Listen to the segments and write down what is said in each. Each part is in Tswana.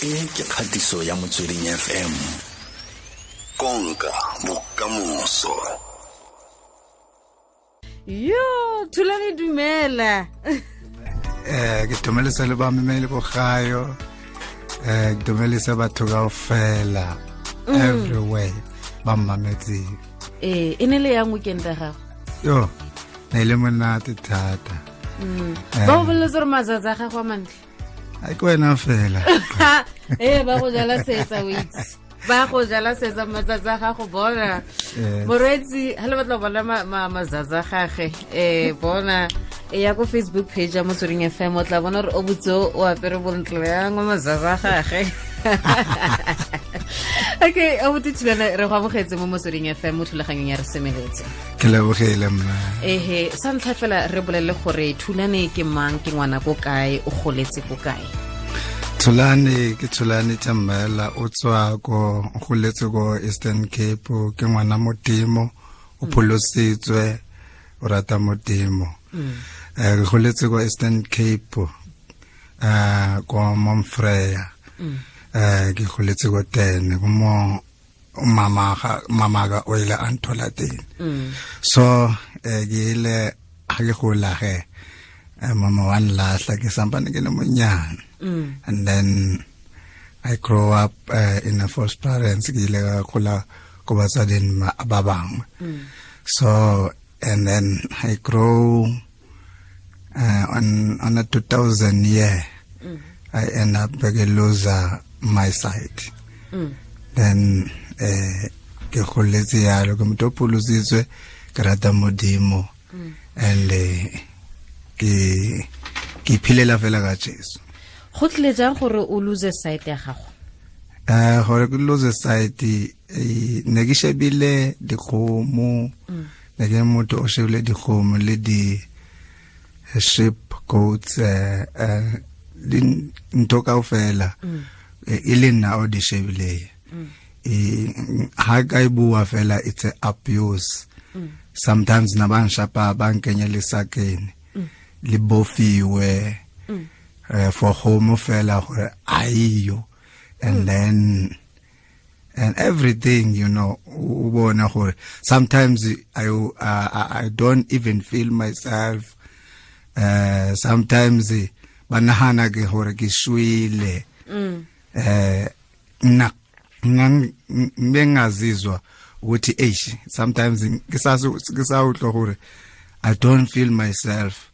E ke kgatiso ya Motsweding FM. Konka bokamoso. Yo, Thulane, dumela. Ke dumelisa le bamameli ko gayo. Ke dumelisa batho kaofela everywhere ba mmametseng. E ne le yang weekend ya gago? Yo, ne le monate thata. Ba go boleletse gore matsatsi a gago a mantle? A ke wena fela. Ee, ba go jala setsa, o itse. Ba go jala setsa matsatsi a gago, bona. Moreetsi, ha le batla go bona matsatsi a gage, bona e ya ko Facebook page ya Motsweding FM, o tla bona gore o botse o apere bontle yang wa matsatsi a gage. Okay, abuti Thulane, re go amogetse mo Motsweding FM mo thulaganyong ya Re Semeletse. Ke lebogile mma. Ehe, sa ntlha fela re bolelele gore Thulane ke mang, ke ngwana ko kae, o goletse ko kae? Thulane ke Thulane Thembela, o tswa ko, o goletse ko Eastern Cape, ke ngwana Modimo, o pholositswe, o rata Modimo. Re goletse ko Eastern Cape, ko Momfreya. Ke goletse ko teng, ko mo mama ga o ile a nthola teng. So ke ile ha ke gola ge, mama wa nlahla ke sampane ke le monyane. And then I grow up in a foster parents, ke ile ka gola ko batsading ba bangwe. So and then I grow on a 2000 year. I end up ke lose my sight. Then ke goletse yalo, ke motho o pholositswe, ke rata Modimo. And ke iphilela fela ka Jesu. Go tlile jang gore o lose sight ya gago? Gore ke lose sight, ne ke shebile dikgomo, ne ke motho o shebile dikgomo le di sheep, goats, di ntho kaofela, e le nna o di shebileng. Ha ka e bua fela, it's a abuse. Sometimes na ba nshapa, ba nkenya lesakeni, le bofiwe, for kgomo fela gore aiyo. And then and everything, you know, o bona gore sometimes I don't even feel myself. Sometimes ba nahana ke gore ke shwele. Nna ngengazizwa ukuthi eish, sometimes ke sa utlwa gore I don't feel myself.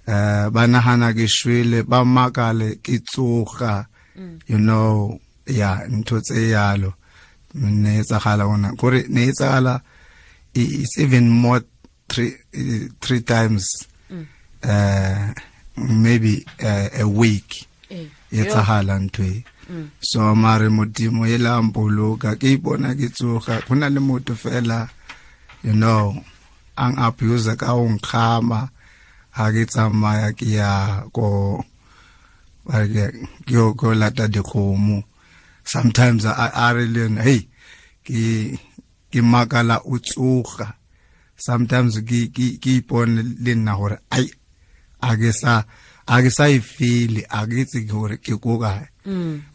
Ba nahana ke shwele, ba makale ke tsoga. You know, yeah, ntho tse yalo ne etsagala ona gore ne etsagala, it's even more three times, maybe a week etsagala ntho e. So mare Modimo e la mpoloka, ke ipona ke tsoga. Go na le motho fela, you know, ang abuse ka o nkgama ha ke tsamaya ke ya ko ba re ke yo ko lata dikgomo. Sometimes a re le yena, hey, ke makala o tsoga. Sometimes ke ipone le nna gore ai, a ke sa e feel, a ke itse gore ke ko kae.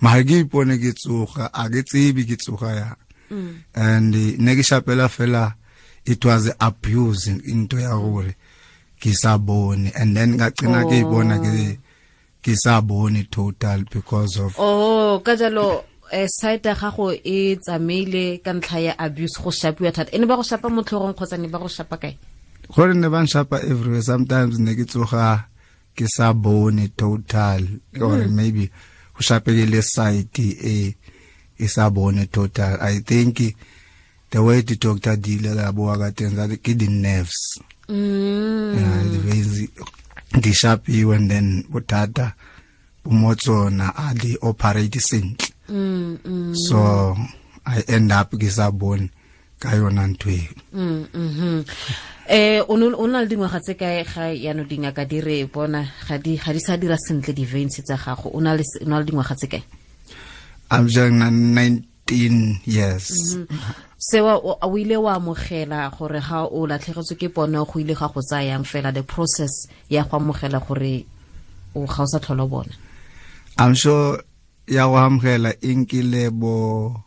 Mara ke ipone ke tsoga, a ke tsebe ke tsoga yang. And ne ke shapela fela, it was abuse into ya gore ke sa bone, and then ka gcina ke ibona ke sa bone total because of Oh, ka jalo sight ya gago e tsamaile ka ntlha ya abuse, go shapiwa thata. E ne ba go shapa mo tlhogong kgotsa ne ba go shapa kae? Gore ne ba nshapa everywhere. Sometimes ne ke tsoga ke sa bone total, or maybe go shapekile side e sa bone total. I think the way the doctor deal la bua ka teng, that ke di nerves. Yeah, the veins di shapiwe, and then bothata bo mo tsona, a di operate sentle. So I end up ke sa bone ka yona ntho eo. O na le dingwaga tse kae ga yaanong dingaka di re bona ga di sa dira sentle di-veins tsa gago? O na le dingwaga tse kae? I'm just 19 years. Sewa o ile wa amogela gore ga o latlhegetswe ke pono, go ile ga go tsayang fela the process ya go amogela gore o ga o sa tlhola o bona? I'm sure. ya go amogela e nkile bo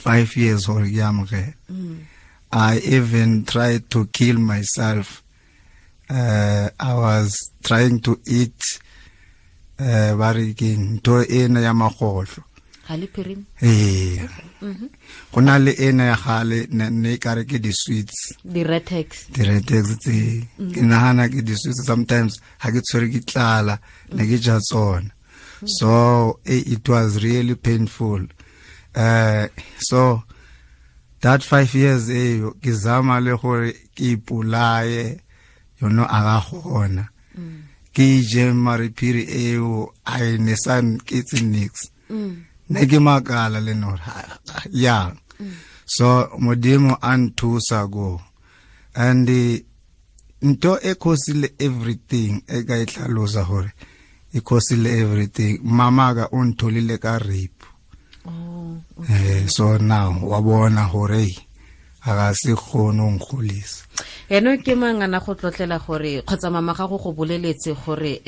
5 years gore ke amogele. I even tried to kill myself. I was trying to eat ba re keng ntho ena ya magotlo. Ga le phirimi? Ee. Go na le ena ya gale ne ka re ke di-sweets. Di-retex. Di-retex tse. Ke nagana ke di-sweets sometimes ha ke tshwere ke tlala ne ke ja tsona. So it was really painful. So that 5 years ke zama le gore ke ipolaye, you know, a ga gona. Ke je mariphiri eo a ne sa ke tse nix. Ne ke makala le no ya. So Modimo a nthusa go. And ntho e khosile everything e ka e tlhalosa gore e khosile everything. Mama ka o ntholile ka rape. Oh, okay. So now wa bona gore a ga se kgone go nkgolisa. Eno ke mangana go tlotlela gore kgotsa mama gago go boleletse gore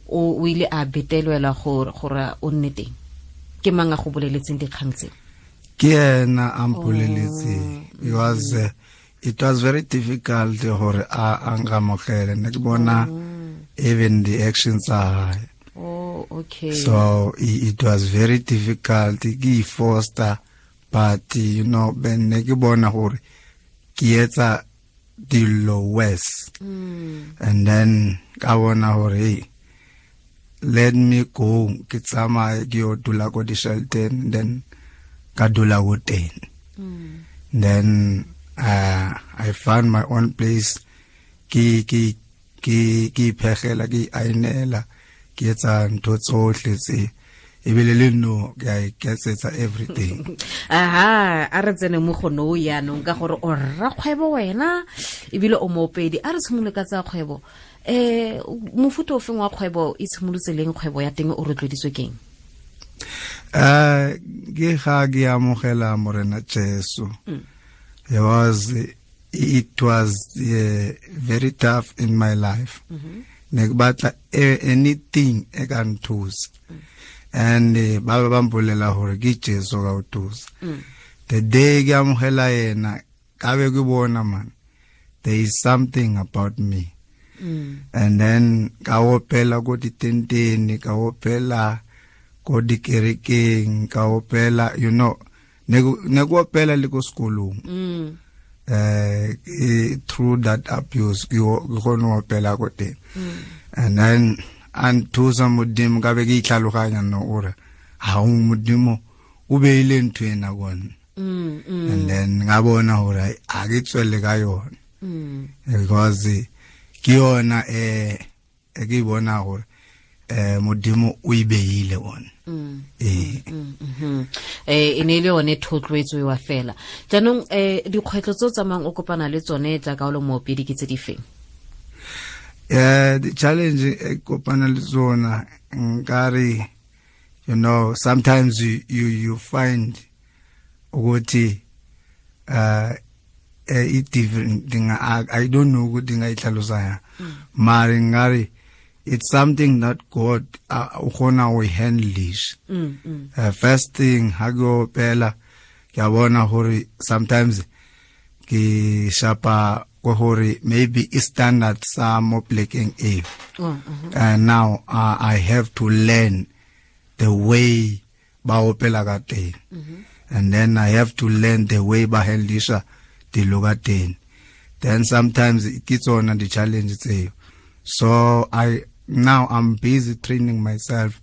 o ile a betelwela gore o nne teng. Ke mang a go boleletseng dikgang tse? Ke ena a mpoleletseng. It was very difficult gore a nkamogele. Ne ke bona even the actions are high. Oh, okay. So it was very difficult. Ke foster, but you know, ben ne ke bona gore ke etsa dilo worse. And then ka bona gore let me go, ke tsamaye ke yo dula ko di-shelter, then ka dula ko teng. Then I found my own place. Ke iphegela, ke ainela, ke etsa ntho tsohle tse ebile le no ke a iketsetsa everything. Aha, a re tsene mo go no yaanong ka gore o rrakgwebo wena ebile o moopedi. A re tshimolole ka tsa kgwebo. Mofuta o feng wa kgwebo e tshimolotse leng kgwebo ya teng o rotloeditswe keng? Ke ga ke amogela Morena Jesu. It was very tough in my life. Ne ke batla anything e ka nthusa. And ba ba mpolela gore ke Jesu ka o thusa. The day ke amogela yena ka be ke bona man, there is something about me. And then ka opela ko ditenteng, ka opela ko dikerekeng, ka opela, you know, ne go opela le ko sekolong. Through that abuse ke gone opela ko teng. And then and thusa Modimo ka be ke itlhaloganya no ore ha o Modimo o beile ntho ena kone. And then nga bona hore a ke tswelle ka yona. Because ke yona e ke bona hore Modimo o e beile ona. E ne le yone thotloetso wa fela. Jaanong dikgwetlho tse o tsamayang o kopana le tsone jaaka o le moopedi ke tse di feng? The challenge e kopana le tsona nkare, you know, sometimes you find ukuthi it different thing. I don't know ukuthi ngayihlalosa ya. Mara ngare it's something that God o kgona go handle. First thing ha ke opela ke a bona hore sometimes ke shapa ko hore maybe i standard sa mo plekeng e. And now I have to learn the way ba opela ka teng. And then I have to learn the way ba handlisha dilo ka teng. Then sometimes ke tsona di challenge tseo. So I now I'm busy training myself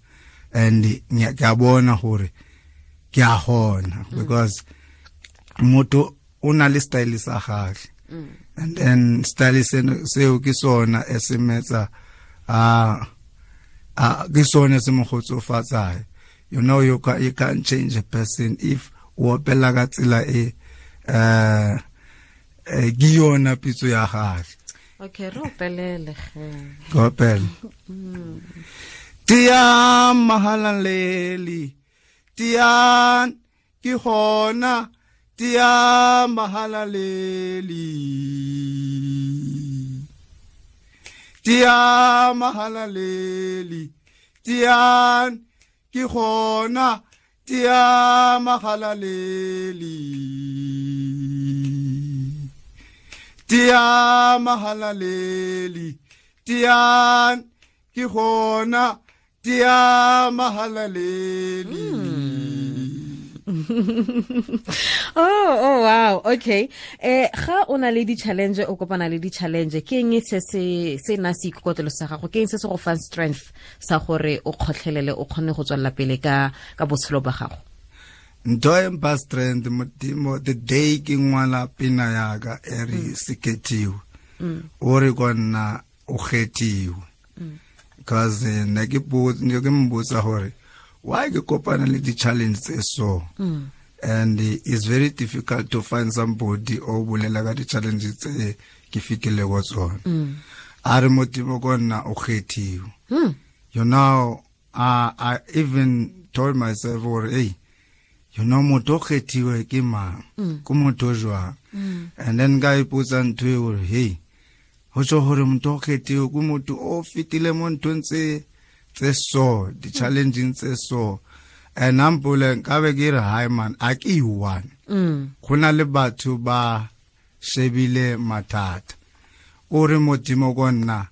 and ke a bona hore ke a hona because motho o na le style sa gagwe. And then style seo ke sona e se metsa a ke sona se mo kgotsofatsang. You know, you can't change a person if o opela ka tsela e ke yona pitso ya gagwe. Okay, re opelele ge. Opela. Tiang mahalaleli, tiang ke hona, tiang mahalaleli. Tiang mahalaleli, tiang ke gona tia mahalaleli tia mahalaleli tia ke gona tia mahalaleli. Oh wow, okay. Ga o na le di-challenge, o kopana le di-challenge, ke eng se se na se ikokotelo sa gago, ke eng se se go fang strength sa gore o kgotlhelele, o kgone go tswelela pele ka botshelo ba gago? Ntho e mpha strength Modimo, the day ke ngwala pina yaka e re sekethiwe, o re ko nna o kgethiwe, because ne ke mbotsa gore why ke kopana le di-challenge tse so, and it's very difficult to find somebody o bolela ka di-challenge tse ke fetile go tsona. A re Modimo ko nna o kgethiwe. You know, I even told myself gore hey, you know, motho o kgethiwe ke mang, ke motho jwang? And then ka ipotsa ntho e gore hey, ho tjho hore motho o kgethiwe ke motho o fetile mo nthong tse so, di-challenging tse so. And ampule nkabe ke re hi man, a ke one. Go na le batho ba shebile mathata. O re Modimo ko nna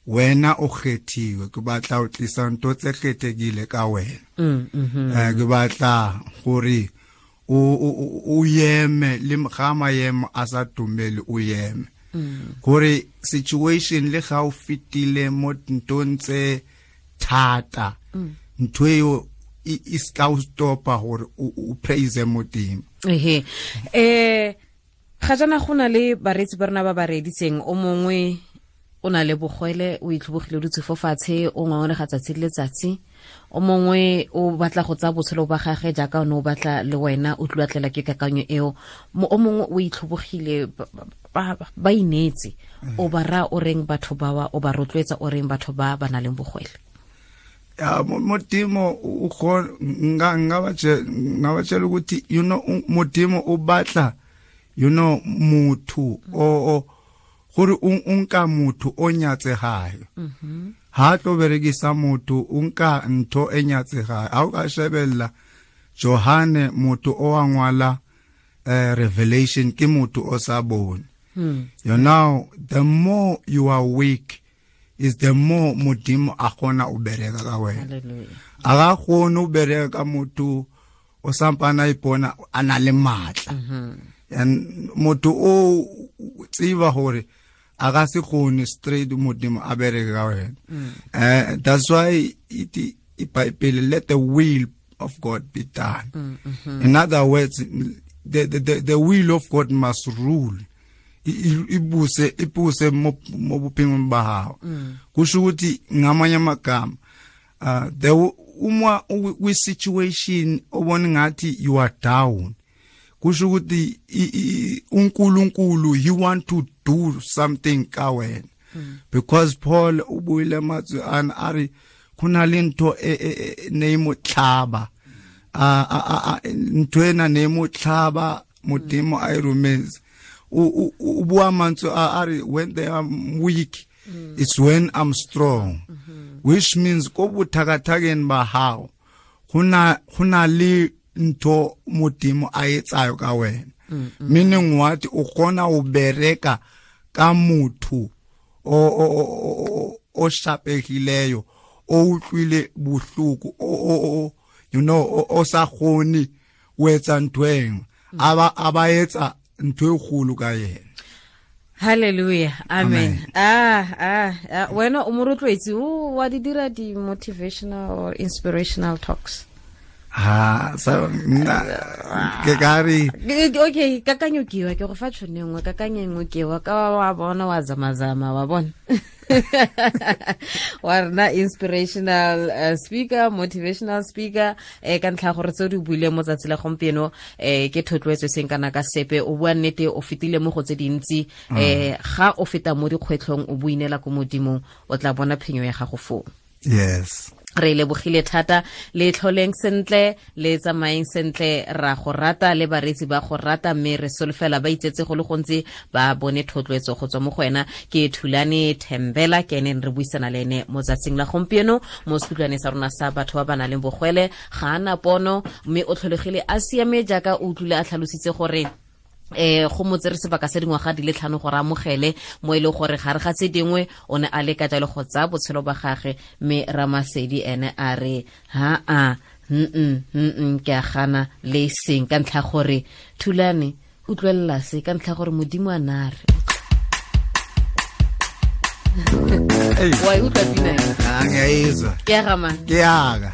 wena o kgethiwe, ke batla o tlisa ntho tse kgethegile ka wena. Ke batla gore o yeme le ga maemo a sa dumele o yeme. Gore situation le ga o fetile mo nthong tse thata, ntho eo e ska o stopa gore o praise Modimo. Ehe. Ga jana go na le bareetsi ba rena ba ba reeditseng, o mongwe o na le bogwele, o itlhobogile o dutse fo fatshe, o ngongorega tsatsi le letsatsi, o mongwe o batla go tsaya botshelo ba gagwe jaaka o ne o batla le wena, o tluatlela ke kakanyo eo, o mongwe o itlhobogile, ba ineetse, o ba raya o reng batho bawa, o ba rotloetsa o reng batho ba ba nang le bogwele? Ya Modimo o nga ba tshela ukuthi you know Modimo o batla, you know, motho o gore o nka motho o nyatsegayo. Ha tlo berekisa motho o nka ntho e nyatsegayo. Ha o ka shebella Johane, motho o wa ngwala Revelation, ke motho o sa bone. You know, the more you are weak is the more Modimo a kgona o bereka ka wena. A ga kgone o bereka ka motho o sampana ipona a na le matla. And motho o tseba hore a ga se kgone straight Modimo a bereke ka wena. That's why it Bible, let the will of God be done. In other words, the will of God must rule. Ibuse mo bophelong ba hao. Kusho ukuthi ngamanye amagama, the uma we situation obona ngathi you are down, kusho ukuthi uNkulunkulu he want to do something ka wena. Because Paul ubuyile mazwi an ari khona le ntho e ne tlhaba, ntho ena ne mo tlhaba Modimo a e rometse. O bua mantswe a re when they are weak, it's when I'm strong. Which means ko bothakathakeng ba hao hona le ntho Modimo a etsayo ka wena. Meaning what, o kgona o bereka ka motho o shapegileyo, o utlwile bohloko, o you know, o sa kgone o etsa ntho eng, aba etsa ntho e kgolo ka yena. Hallelujah, amen. Wena o morotloetsi, o wa di dira di motivational or inspirational talks? Ha sa nna ke kare okay, kakanyo ke wa ke go fa tshone nngwe, kakanyo nngwe ke wa ka wa bona wa zamazama wa bona. Wa rena inspirational speaker, motivational speaker, ka ntlha gore tse di buile mo tsatsi la gompieno, ke thotloetso seng kana ka sepe, o bua nnete, o fetile mo go tse dintsi, ga o feta mo dikgwetlhong o buinela ko Modimong, o tla bona phenyo ya gago foo. Yes. Re lebogile thata, le tlholeng sentle, le tsamayeng sentle. Ra go rata le bareetsi ba go rata, mme re solofela ba itsetse go le gontsi, ba bone thotloetso go tswa mo go wena. Ke Thulane Thembela, ke ene re buisana le ene mo tsatsing la gompieno mo sekutlwane sa rona sa batho ba ba nang le bogwele. Ga ana pono, mme o tlholegile a siame, jaaka o utlwile a tlhalositse gore go mo tsere sebaka se dingwaga di le 5 gore amogele mo e le gore gare ga tse dingwe o ne a leka jalo go tsaya botshelo ba gage, mme Ramasedi ene a re ha a ke a gana le seng, ka ntlha gore Thulane utlwelela se, ka ntlha gore Modimo a na re wa e utlwa pina e? Ngiyayizwa. Ke ya ga mang? Ke yaka.